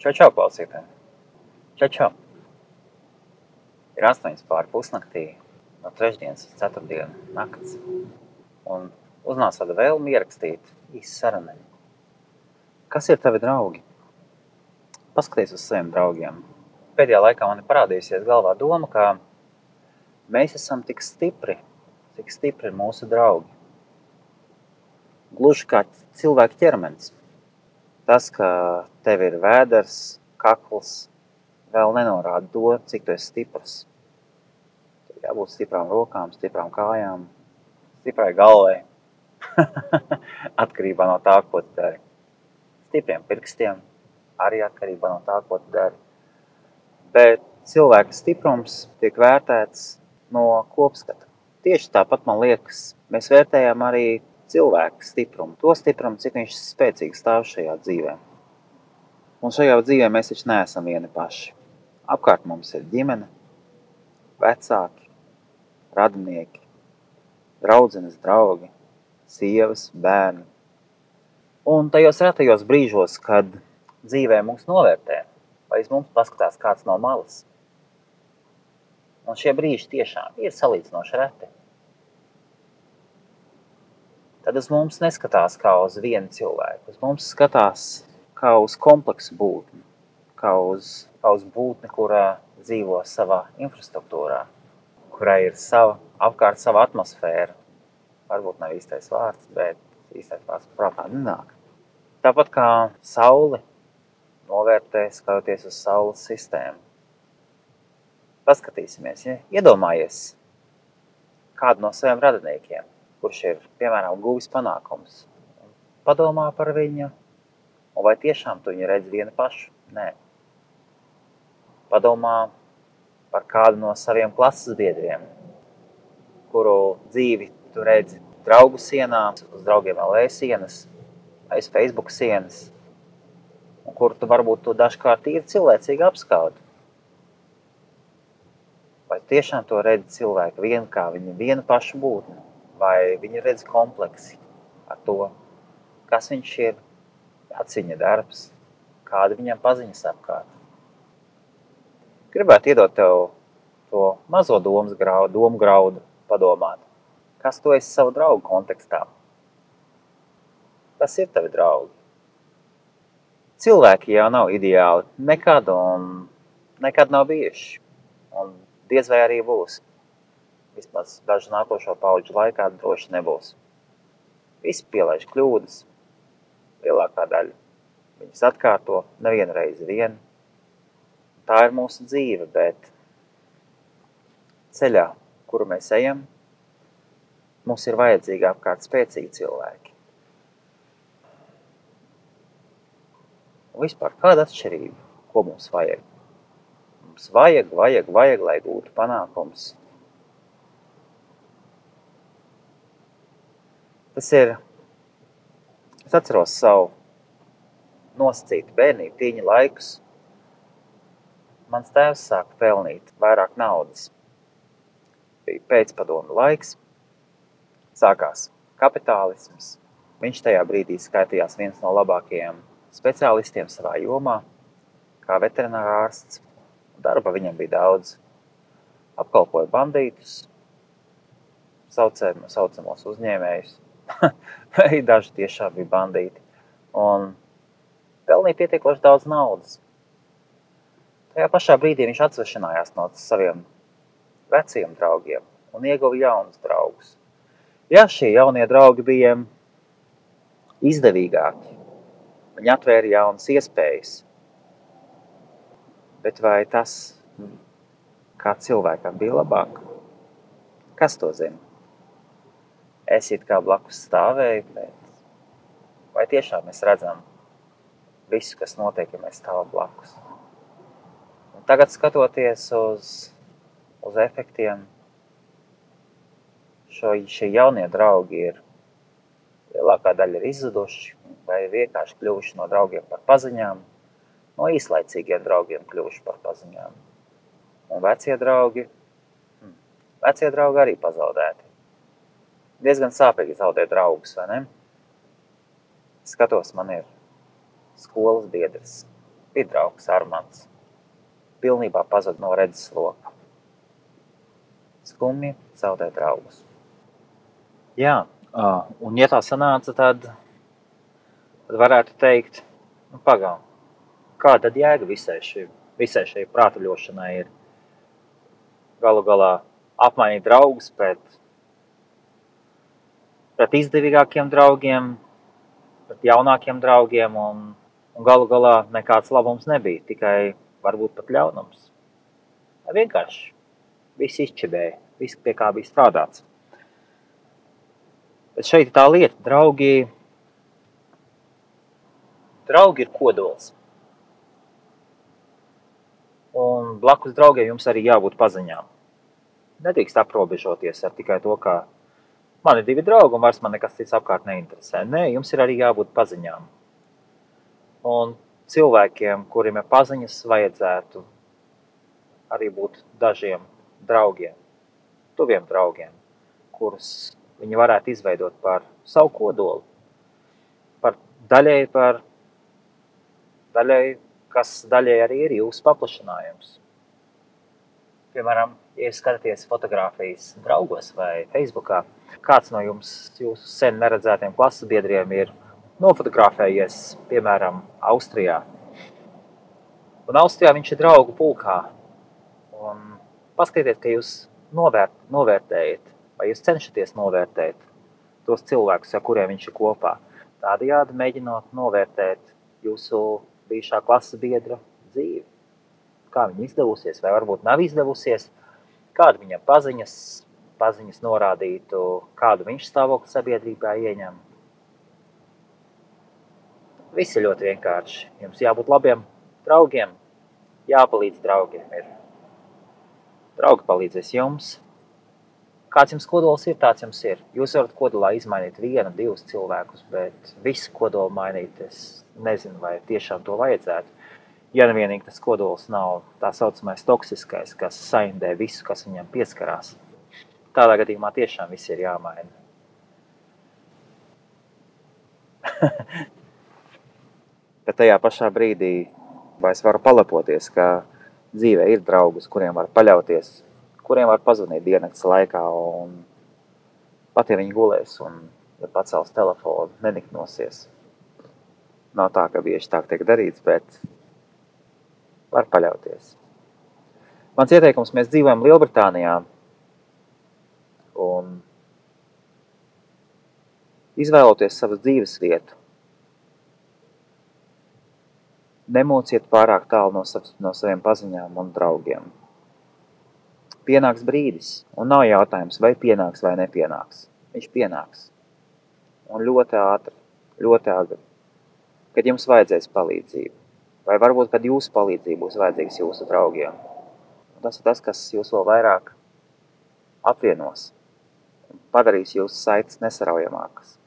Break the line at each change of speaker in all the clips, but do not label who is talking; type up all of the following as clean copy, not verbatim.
Čau, klausītāji! Čau! Ir 8:30 no trešdienas uz ceturtdienu nakts. Un uznāca tāda vēlme ierakstīt īsu sarunu. Kas ir tavi draugi? Paskaties uz saviem draugiem. Pēdējā laikā man ir parādījusies galvā doma, ka mēs esam tik stipri, cik stipri ir mūsu draugi. Gluži kā cilvēka ķermenis. Tas, ka tev ir vēders, kakls, vēl nenorāda to, cik tu esi stiprs. Tev jābūt stiprām rokām, stiprām kājām, stiprai galvai. Atkarībā no tā, ko tu dari. Stipriem pirkstiem arī atkarībā no tā, ko tu dari. Bet cilvēka stiprums tiek vērtēts no kopskata. Tieši tāpat, man liekas, mēs vērtējam arī cilvēka stiprumu. To stiprumu, cik viņš spēcīgi stāv šajā dzīvē. Un šajā dzīvē mēs taču neesam vieni paši. Apkārt mums ir ģimene, vecāki, radinieki, draudzenes, draugi, sievas, bērni. Un tajos retajos brīžos, kad dzīvē mūs novērtē, vai uz mums paskatās kāds no malas. Un šie brīži tiešām ir salīdzinoši reti. Tad uz mums neskatās kā uz vienu cilvēku. Uz mums skatās kā uz kompleksu būtni, kā uz būtni, kurā dzīvo savā infrastruktūrā, kurai ir apkārt sava atmosfēra. Varbūt nav īstais vārds, bet īstais vārds prātā nenāk. Tāpat kā sauli novērtē, skatoties uz saules sistēmu. Paskatīsimies, ja? Iedomājies kādu no saviem radiniekiem, kurš ir, piemēram, guvis panākums. Padomā par viņu, un vai tiešām tu viņu redzi vienu pašu? Nē. Padomā par kādu no saviem klases biedriem, kuru dzīvi tu redzi draugu sienā, uz draugiem LV sienas, aiz Facebook sienas, un kuru tu varbūt dažkārt ir cilvēcīgi apskaudi. Vai tiešām to redzi cilvēku vienu kā viņu vienu pašu būtni? Vai viņi redz kompleksi ar to, kas viņš ir, kāds viņa darbs, kāda viņam paziņas apkārt. Gribētu iedot tev to mazo domu graudu padomāt. Kas tu esi savu draugu kontekstā? Kas ir tavi draugi? Cilvēki jau nav ideāli nekad un nekad nav bijuši. Un diez vai arī būs. Vismaz dažu nākošo paudžu laikā droši nebūs. Visi pielaiž kļūdas, lielākā daļa viņas atkārto nevienu reizi vien. Tā ir mūsu dzīve, bet ceļā, kuru mēs ejam, mums ir vajadzīgi apkārt spēcīgi cilvēki. Un vispār kāda atšķirība, ko mums vajag? Mums vajag, lai gūtu panākums. Es atceros savu nosacītu bērnību tīņa laikus. Mans tēvs sāka pelnīt vairāk naudas. Bija pēcpadomu laiks, sākās kapitālisms. Viņš tajā brīdī skaitījās viens no labākajiem speciālistiem savā jomā, kā veterinārārsts. Darba viņam bija daudz. Apkalpoja bandītus, saucamos uzņēmējus. Vai daži tiešām bija bandīti. Un pelnīja pietiekoši daudz naudas. Tajā pašā brīdī viņš atsvešanājās no saviem veciem draugiem un ieguva jaunus draugus. Jā, šie jaunie draugi bija izdevīgāki. Viņi atvēra jaunas iespējas. Bet vai tas, kā cilvēkam, bija labāk? Kas to zina? Es it kā blakus stāvēju, bet vai tiešām mēs redzam visu, kas notiek, ja mēs stāvam blakus? Un tagad skatoties uz efektiem, šie jaunie draugi lielākā daļa ir izzuduši vai vienkārši kļuvuši no draugiem par paziņām, no īslaicīgiem draugiem kļuvuši par paziņām. Un vecie draugi arī pazaudēti. Diezgan sāpīgi zaudēt draugus, vai ne? Skatos, man ir skolas biedrs, bija draugs Armands. Pilnībā pazuda no redzesloka. Skumji zaudē draugus. Jā, un ja tā sanāca, tad varētu teikt, pagaum, kā tad jēga visai šai prātuļošanai ir galu galā apmainīt draugus pret izdevīgākiem draugiem, pret jaunākiem draugiem, un galu galā nekāds labums nebija, tikai varbūt pat ļaunums. Vienkārši viss izčibēja, viss pie kā bija strādāts. Bet šeit tā lieta, draugi ir kodols. Un blakus draugiem jums arī jābūt paziņām. Nedrīkst aprobežoties ar tikai to, ka man ir 2 draugi un vairs man nekas cits apkārt neinteresē. Nē, jums ir arī jābūt paziņām. Un cilvēkiem, kuriem ir paziņas, vajadzētu arī būt dažiem draugiem, tuviem draugiem, kurus viņi varētu izveidot par savu kodolu, daļai, kas daļai arī ir jūsu paplašinājums. Piemēram, ja skatāties fotogrāfijas draugos vai Facebookā, kāds no jūsu sen neredzētiem klases biedriem ir nofotografējies, piemēram, Austrijā. Un Austrijā viņš ir draugu pulkā. Un paskatieties, ka jūs novērtējat, vai jūs cenšaties novērtēt tos cilvēkus, ar kuriem viņš ir kopā. Tādējādi mēģinot novērtēt jūsu bijušā klases biedra dzīvi. Kā viņa izdevusies, vai varbūt nav izdevusies, kāda viņam paziņas norādītu, kādu viņš stāvokli sabiedrībā ieņem. Viss ir ļoti vienkārši. Jums jābūt labiem draugiem, jāpalīdz draugiem. Draugi palīdzēs jums. Kāds jums kodols ir, tāds jums ir. Jūs varat kodolā izmainīt 1, 2 cilvēkus, bet visu kodolu mainīt, es nezinu, vai tiešām to vajadzētu. Ja nevienīgi tas kodols nav tā saucamais toksiskais, kas saindē visu, kas viņam pieskarās. Tādā gadījumā tiešām viss ir jāmaina. Bet tajā pašā brīdī vai es varu palepoties, ka dzīvē ir draugus, kuriem var paļauties, kuriem var pazvanīt diennakts laikā, un pat ja viņi gulēs un ja pacels telefonu, neniknosies. Nav tā, ka bieži tā tiek darīts, bet var paļauties. Mans ieteikums, mēs dzīvojam Lielbritānijā, un izvēloties savas dzīves vietu, nemociet pārāk tālu no saviem paziņām un draugiem. Pienāks brīdis, un nav jautājums, vai pienāks vai nepienāks. Viņš pienāks. Un ļoti ātri, ļoti agri, kad jums vajadzēs palīdzību. Vai varbūt, kad jūsu palīdzība būs vajadzīgs jūsu draugiem. Un tas ir tas, kas jūs vēl vairāk apvienos un padarīs jūsu saites nesaraujamākas.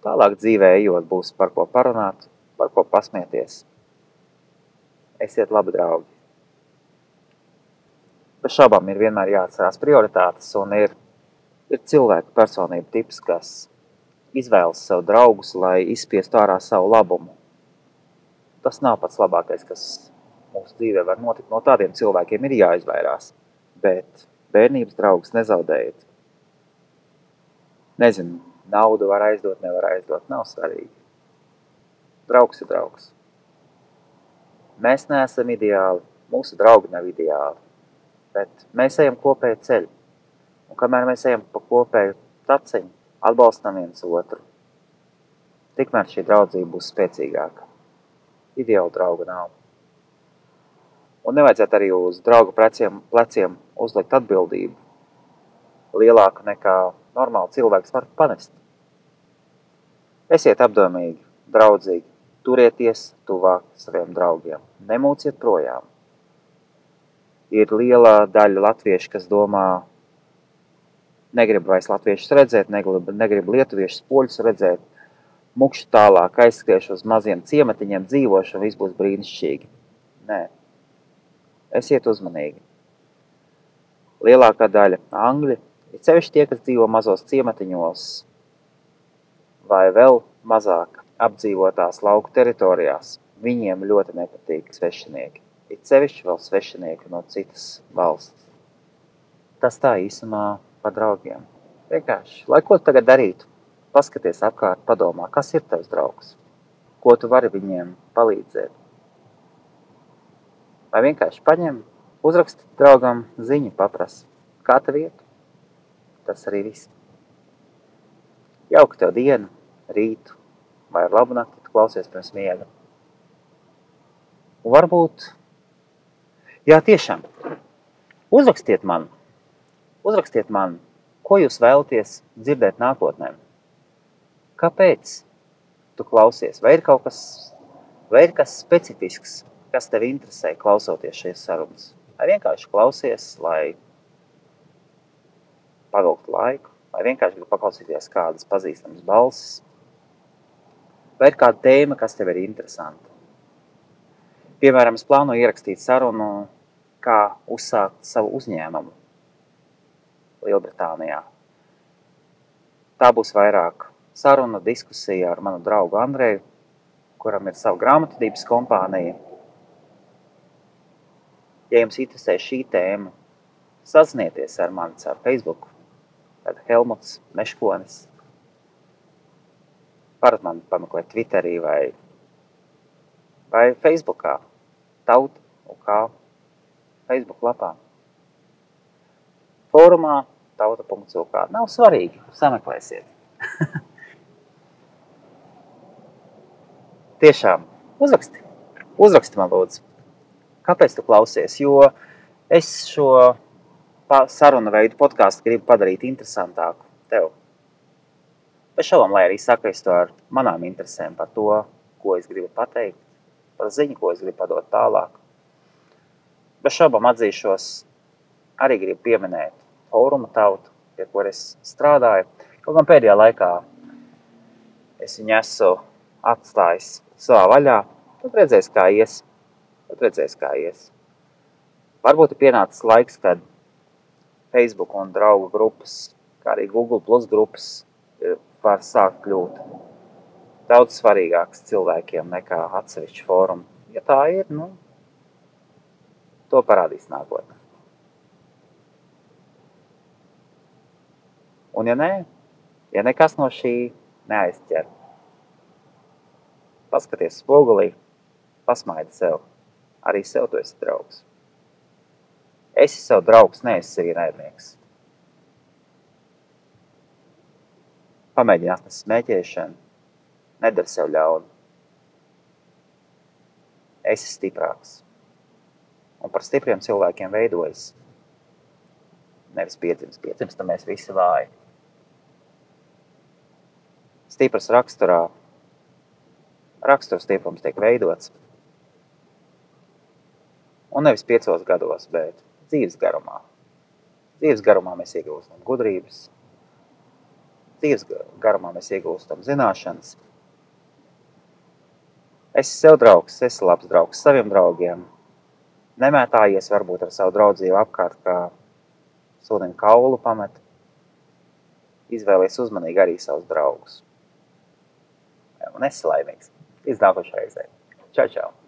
Tālāk dzīvē ejot būs par ko parunāt, par ko pasmieties. Esiet labi draugi. Bez šaubām ir vienmēr jāatcerās prioritātes, un ir cilvēku personība tips, kas izvēlas sev draugus, lai izspiestu ārā savu labumu. Tas nav pats labākais, kas mūsu dzīvē var notikt. No tādiem cilvēkiem ir jāizvairās, bet bērnības draugus nezaudējiet. Nezinu, naudu var aizdot, nevar aizdot, nav svarīgi. Draugs ir draugs. Mēs neesam ideāli, mūsu draugi nav ideāli, bet mēs ejam kopēju ceļu. Un kamēr mēs ejam pa kopēju taciņu, atbalstam viens otru, tikmēr šī draudzība būs spēcīgāka. Ideāla drauga nav. Un nevajadzētu arī uz draugu pleciem uzlikt atbildību lielāku nekā normāli cilvēks var panest. Esiet apdomīgi, draudzīgi, turieties tuvāk saviem draugiem, nemūciet projām. Ir liela daļa latviešu, kas domā, negrib vairs latviešus redzēt, negrib lietuviešus poļus redzēt, mukšu tālāk aizskriešu uz maziem ciematiņiem dzīvošu un viss būs brīnišķīgi. Nē. Esiet uzmanīgi. Lielākā daļa angļi, ir sevišķi tie, kas dzīvo mazos ciematiņos vai vēl mazāk apdzīvotās lauku teritorijās, viņiem ļoti nepatīk svešinieki. It sevišķi vēl svešinieki no citas valsts. Tas tā īsumā par draugiem. Vienkārši, lai ko tu tagad darītu, paskaties apkārt, padomā, kas ir tavs draugs, ko tu vari viņiem palīdzēt. Vai vienkārši paņem, uzraksti draugam ziņu, paprasti, kā tev iet. Tas arī viss. Jauka tev dienu, rītu vai ar labu nakti, tu klausies pirms miega. Un varbūt, jā, tiešām, uzrakstiet man, ko jūs vēlaties dzirdēt nākotnē. Kāpēc tu klausies? Vai ir kaut kas, vai ir kas specifisks, kas tev interesē klausoties šīs sarunas? Vai vienkārši klausies, lai pavilktu laiku? Vai vienkārši gribi paklausīties kādas pazīstamas balsis? Vai ir kāda tēma, kas tev ir interesanta? Piemēram, es plānoju ierakstīt sarunu, kā uzsākt savu uzņēmumu Lielbritānijā. Tā būs vairāk saruna, diskusija ar manu draugu Andreju, kuram ir sava grāmatvedības kompānija. Ja jums interesē šī tēma, sazinieties ar mani caur Facebook, tad Helmuts Meškonis. Varat mani pameklēt Twitterī vai Facebookā, Tauta UK Facebook lapā. Fórumā tauta.uk. Nav svarīgi, sameklēsiet. Tiešām, uzraksti man lūdzu. Kāpēc tu klausies? Jo es šo sarunu veidu podcastu gribu padarīt interesantāku tev. Bez šaubām, lai arī sakaistu ar manām interesēm par to, ko es gribu pateikt, par ziņu, ko es gribu padot tālāk. Bez šaubām atzīšos, arī gribu pieminēt Fóruma Tautu, pie kur es strādāju. Kaut gan pēdējā laikā es viņu esmu atstājis savā vaļā. Tad redzēs, kā ies. Varbūt ir pienācis laiks, kad Facebook un draugu grupas, kā arī Google Plus grupas var sākt kļūt daudz svarīgāks cilvēkiem nekā atsevišķi fórumi. Ja tā ir, to parādīs nākotnē. Un ja nē, ja nekas no šī neaizķer, paskaties spogulī, pasmaidi sev. Arī sev tu esi draugs. Esi sev draugs, neesi sev ienaidnieks. Pamēģini atnest smēķēšanu, nedari sev ļaunu. Esi stiprāks. Un par stipriem cilvēkiem veidojas. Nevis piedzims, tad mēs visi vāji. Stipras raksturs stiprums tiek veidots. Un nevis 5 gados, bet dzīves garumā. Dzīves garumā mēs iegūstam gudrības. Dzīves garumā mēs iegūstam zināšanas. Esi sev draugs, esi labs draugs saviem draugiem. Nemētājies varbūt ar savu draudzību apkārt, kā sunim kaulu pamet. Izvēlies uzmanīgi arī savus draugus. Un esi laimīgs. Līdz nākošai reizei. Čau, čau!